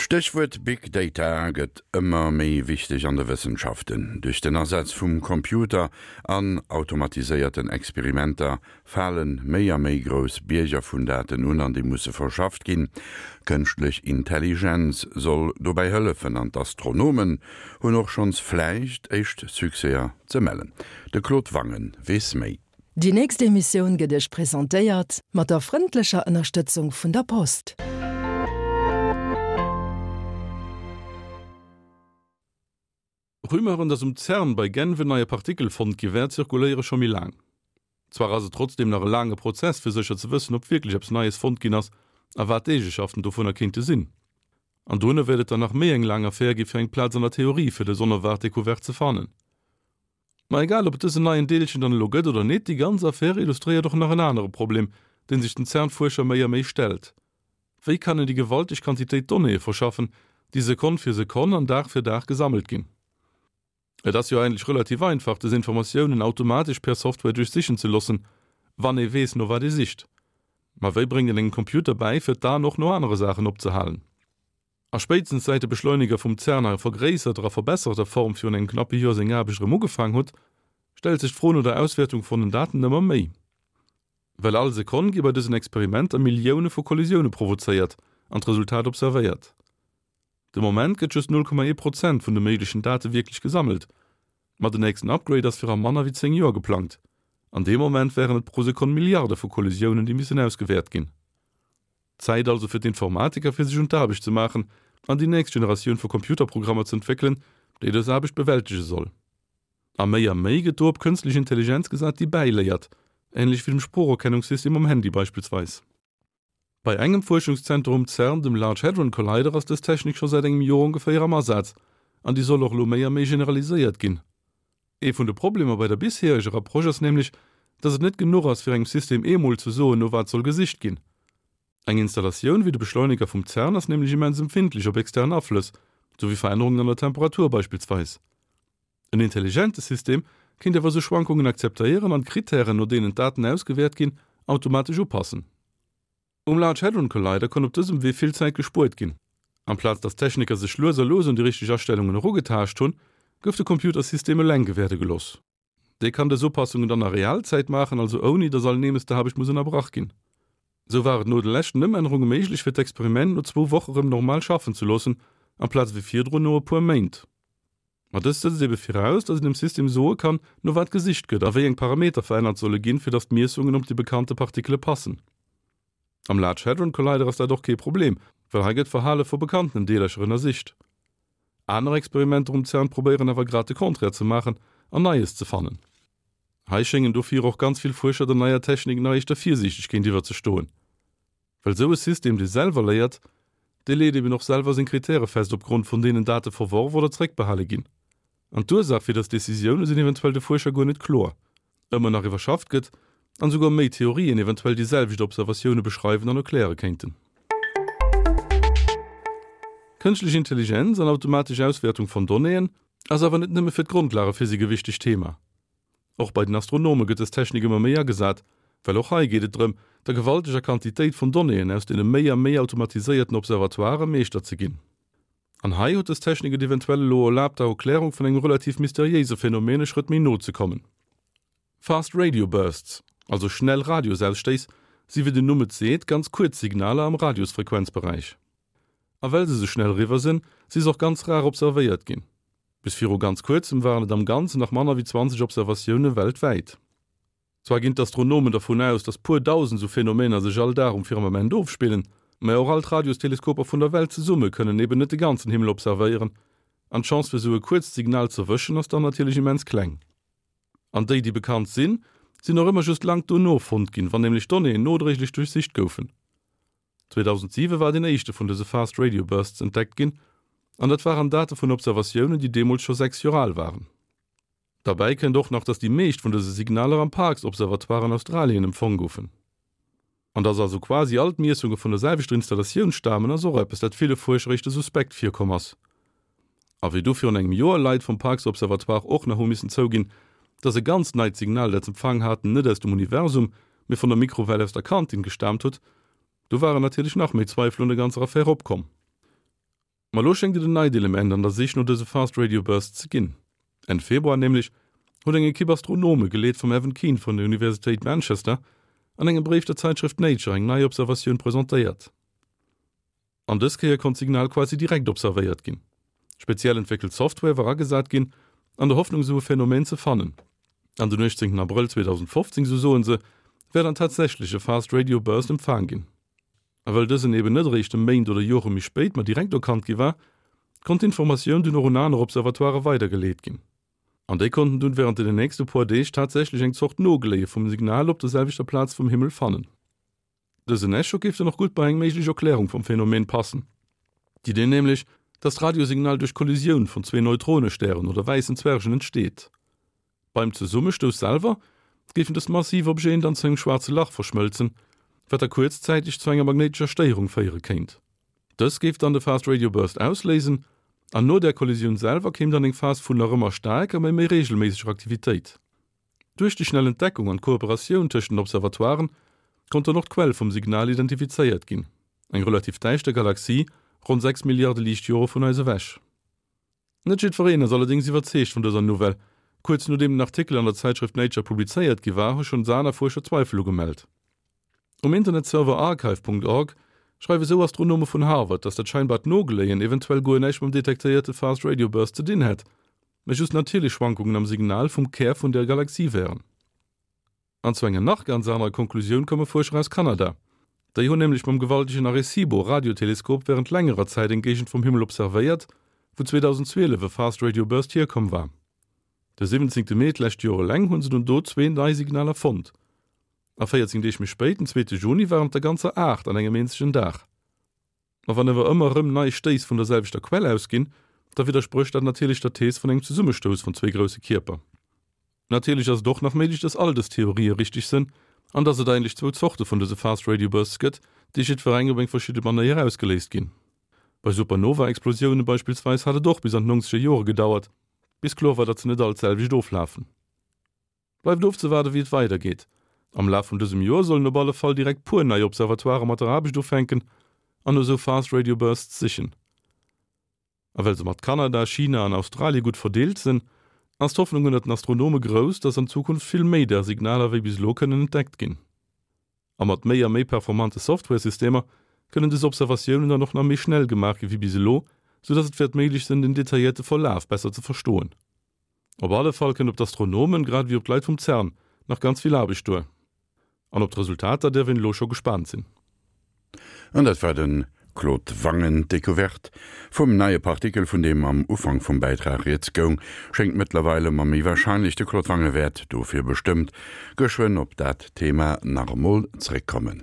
D'Stéchwuert Big Data gëtt ëmmer méi wichteg an de Wëssenschaften. Duerch den Asaz vum Computer an automatiséierten Experimenter fale méi a méi grouss Bierger vun Daten un an déi musse verschafft ginn. Kënschtlech Intelligenz soll dobäi hëllefen an d'Astronomen hunn och schonns vläicht éischt Succèser ze mellen. De Claude Wangen weess méi. Déi nächst Emissioun gëtt Iech presentéiert mat der frëndlecher Ënnerstëtzung vun der Post. Rumeuren, dass um CERN bei Genf en neie Partikel fonnt gi wär, zirkuléiere scho méi laang. Zwar ass et trotzdeem nach e laange Prozess, fir sécher ze wëssen, ob wierklech eppes Neies fonnt ginn ass a wat d'Eegeschaften dovunner kéinte sinn. An dono wäert et dann nach méi eng laang Affär gi fir eng Plaz an der Theorie fir dës onerwaart Decouverte ze fannen. Ma egal ob et dësen neien Deelchen dann elo gëtt oder nit, déi ganz Affär illustréiert och nach en anere Problem, deen sech den CERN-Fuerscher méi a méi stellt, Wéi kann een déi gewalteg Quantitéit Donnéeë verschaffen, déi Sekonn fir Sekonn an Dag fir Dag gesammelt ginn? Et ass jo eigentlech relativ einfach, dës Informatiounen automatesch per Software duerchsichen ze loossen, wann ee weess, no wat ee sicht. Ma wéi bréngt een engem Computer bäi, fir d'Aen och no anere Saachen opzehalen? A spéitstens säit de Beschleuniger vum CERN a vergréisserter a verbesserter Form virun engem knappe Joer seng Aarbecht erëm ugefaang hutt, stellt sech d'Fro no der Auswäertung vun den Daten ëmmer méi. Well all Sekonn gi bei dësen Experimenter Millioune vu Kollisioune provozéiert an d'Resultat observéiert. De Moment gëtt just 0,1 Prozent vun de méiglechen Date wierklech gesammelt, ma den nächsten Upgrade ass fir a manner wéi 10 Joer geplangt. An deem Moment wären et pro Sekonn Milliarde vu Kollisiounen, déi missen ausgewäert ginn. Zäit also fir d'Informatiker fir sech un d'Aarbecht ze maachen an déi nächst Generatioun vu Computerprogrammer ze entwéckelen, déi dës Aarbecht bewältege soll. A méi a méi gëtt do op kënstlech Intelligenz gesat, déi bäiléiert, änlech wéi dem Sproocherkennungssystem um Handy beispillsweis. Bei engem Fuerschungszenter um CERN, dem Large Hadron Collider, ass dës Technik scho säit engem Joer ongeféier am Asaz an déi soll och elo méi a méi generaliséiert ginn. Ee vun de Problemer bei der bishereger Approche ass nämlech, dass et net genuch ass, fir engem System eemol ze soen, no wat soll gesicht ginn. Eng Installatioun wéi de Beschleuniger vum CERN ass nämlech immens empfindlech op extern Aflëss, sou wéi Verännerungen an der Temperatur beispillsweis. En intelligente System kéint awer esou Schwankungen akzeptéieren an d'Krittären, no deenen d'Daten ausgewäert ginn, automatesch upassen. Um Large Hadron Collider konnt op dësem Wee vill Zäit gespuert ginn. Amplaz datt d'Techniker sech lues a lues un déi richteg Astellungen erugetaascht hunn, gouf de Computersystem eleng gewäerde gelooss. Dee kann dës Upassungen dann a Realzäit maachen, also ouni datt all Neemesdeaarbecht muss ënnerbrach ginn. Sou war et no de leschten Ëmännerunge méiglech fir d'Experiment no zwou Woche rëm normal schaffen ze loossen, amplaz ewéi virdrun no e puer Méint. Ma dëst setzt ebe viraus, datt een dem System soe kann, no wat gesicht gëtt a wéi eng Parameter verännert solle ginn, fir datt d'Miessungen op déi bekannte Partikele passen. Am Large Hadron Collider ass dat och kee Problem, well hei gëtt d'Verhale vu bekannten Deelercher ënnersicht. Aner Experimenter um CERN probéieren awer grad de Contraire ze maachen an Neies ze fannen. Hei schéngen dofir och ganz vill Fuerscher der neier Technik nach éischter virsiichteg géintiwwer ze stoen. Well esou e System, dee selwer léiert, dee leet eben och selwer seng Kritäre fest, opgrond vun deenen Date verworf oder zréckbehale ginn. An d'Ursaach fir dës Decisioune sinn eventuell de Fuerscher guer net kloer. Ëmmer nach iwwerschafft gëtt an esouguer méi Theorien eventuell déi selwecht Observatioune beschreiwen an erkläre kéinten. Kënschtlech Intelligenz an automatesch Auswäertung von Donnéeën ass awer net nëmme fir d'Grondlagephysik e wichtegt Thema. Och bei den Astronome gëtt dës Technik ëmmer méi agesat, well och hei geet et drëm, der gewalteger Quantitéit vun Donnéeën aus deene méi a méi automatiséierten Observatoiren Meeschter ze ginn. An hei huet dës Technik et eventuell elo erlaabt, der Erklärung vun engem relativ mysteriéise Phänomen e Schrëtt méi no ze kommen. Fast Radio Bursts, also schnell Radiosausstéiss, si wéi den Numm et seet, ganz kuerz Signaler am Radiosfrequenzberäich. A well se sou schnell eriwwer sinn, si se och ganz rar observéiert ginn. Bis viru ganz kuerzem waren et am Ganzen nach manner wéi 20 Observatioune weltwäit. Zwar ginn d'Astronomen dervun aus, datt puer dausend sou Phänomener sech all Dag um Firmament ofspillen, mä och all d'Radiosteleskoper vun der Welt zesumme kënnen eben net de ganzen Himmel observéieren, an d'Chance fir sou e kuerzt Signal z'erwëschen ass dann natierlech immens kleng. An déi, déi bekannt sinn, sinn och ëmmer just laang dono fonnt ginn, wann nämlech d'Donnéeën nodréiglech duerchsicht goufen. 2007 war deen éischte vun dëse Fast Radio Bursts entdeckt ginn, an dat waren Date vun Observatiounen, déi deemools scho 6 Joer al waren. Derbäi kënnt och nach, datt déi meescht vun dëse Signaler am Parkes Observatoire an Australien empfong goufen. An datt also quasi all d'Miessunge vun der selwechter Installatioun stamen, ass och eppes, dat ville Fuerscher éischter suspekt virkomm ass. A wéi du virun engem Joer Leit vum Parkes Observatoire och nach hu missen zouginn, datt e ganz neit Signal, dat s'empfaang haten, net aus dem Universum, mee vun der Mikrowell aus der Kantin gestaamt huet, du waren natierlech nach méi Zweifel un der ganzer Affär opkomm. Ma lo schéngt et en neit Element an der Sich no dëse Fast Radio Bursts ze ginn. Enn Februar nämlech huet eng Ekipp Astronome, geleet vum Evan Keane vun der Universitéit Manchester, an engem Bréif der Zäitschrëft Nature eng nei Observatioun presentéiert. An dës Kéier konnt d'Signal quasi direkt observéiert ginn. Speziell entwéckelt Software war agesat ginn, an der Hoffnung esou e Phänomen ze fannen. An den 18 Abrëll 2015, esou soen se, wär dann tatsächlech e Fast Radio Burst empfaang ginn. A well dësen eben net eréischt e Méint oder Jore méi spéit, ma direkt erkannt gi war, konnt d'Informatioun dunn och un aner Observatoirë weidergeleet ginn. An déi konnten dunn wärend den nächste puer Deeg tatsächlech eng Zort Nogléie vum Signal op der selwechter Plaz vum Himmel fannen. Dësen Echo géif dann och gutt bei eng méiglech Erklärung vum Phänomen passen. D'Idee nämlech, dass d'Radiosignal duerch Kollisioun vun zwee Neutronestären oder wäissen Zwergen entsteet. Beim Zesummestouss selwer géifen dës massiv Objeten dann zu engem schwaarze Lach verschmëlzen, wat da kuerzzäiteg zu enger magnéitescher Stéierung féiere kéint. Dës géif dann de Fast Radio Burst ausléisen an no där Kollisioun selwer kéim dann eng Phas vun nach ëmmer staarker, mä méi reegelméisseger Aktivitéit. Duerch déi schnell Entdeckung an d'Kooperatioun tëscht den Observatoiren konnt dann och d'Quell vum Signal identifizéiert ginn, eng relativ däischter Galaxie ronn 6 Milliarde Liichtjore vun eis ewech. Net jiddwereen ass allerdéngs iwwerzeegt vun dëser Nouvelle. Kuerz nodeem den Artikel an der Zäitschrëft Nature publizéiert gi war, hu schonns aner Fuerscher Zweifel ugemellt. Um Internetserver archive. Org schreiwe sou Astronome vun Harvard, datt dat scheinbart Nogeléien eventuell guer näischt mam detektéierte Fast Radio Burst ze dinn hätt, mä just natierlech Schwankungen am Signal vum Kär vun der Galaxie wären. An zu enger nach ganz anerer Konklusioun komme Fuerscher aus Kanada. Déi hunn nämlech mam gewaltegen Arecibo Radioteleskop wärend längerer Zäit eng Géigend vum Himmel observéiert, wou 2012 e Fast Radio Burst hierkomm war. De 17 Mee d'lescht Joer eleng hu se dunn do zwee nei Signaler fonnt. A 14 Deeg méi spéit, den zweete Juni, waren et der ganzer 8 an engem eenzegen Dag. Ma wann awer ëmmer erëm nei Stéiss vun der selwechter Quell ausginn, da widdersprécht dat natierlech der Thees vun engem Zesummestouss vun zwee grousse Kierper. Natierlech ass et och nach méiglech, dass all dës Theorië richteg sënn an dass et eigentlech zwou Zorte vun dëse Fast Radio Bursts gëtt, déi jiddwereng op eng verschidde Manéier ausgeléist ginn. Bei Supernova-Explosioune beispillsweis hat et och bis an d'nongzeger Jore gedauert, bis kloer war, datt se net all d'selwecht oflafen. Bleift ofzewaarden, wéi et weidergeet. Am Laf vun dësem Joer sollen op alle Fall direkt puer nei Observatoirë mat der Aarbecht ufänken an no sou Fast Radio Bursts sichen. A well se mat Kanada, China an Australie gutt verdeelt sënn, ass d'Hoffnung ënnert den Astronome grouss, dass an Zukunft vill méi där Signaler wéi bis elo kënnen entdeckt ginn. A mat méi a méi performante Software-Systemer kënnen dës Observatiounen dann och nach méi schnell gemaach gi wéi bis elo, sou dass et wäert méiglech sënn, den detailléierte Verlaf besser ze verstoen. Op alle Fall kënnt op d'Astronomen, grad ewéi op d'Leit vum CERN, nach ganz vill Aarbecht duer. An op d'Resultater däerf een elo scho gespaant sinn. An dat war de Claude Wangen. D'Decouverte vum neie Partikel, vun deem am Ufank vum Bäitrag rieds goung, schéngt mëttlerweil ëmmer méi warscheinlech. De Claude Wange wäert dofir bestëmmt geschwënn op dat Thema nach emol zréckkommen.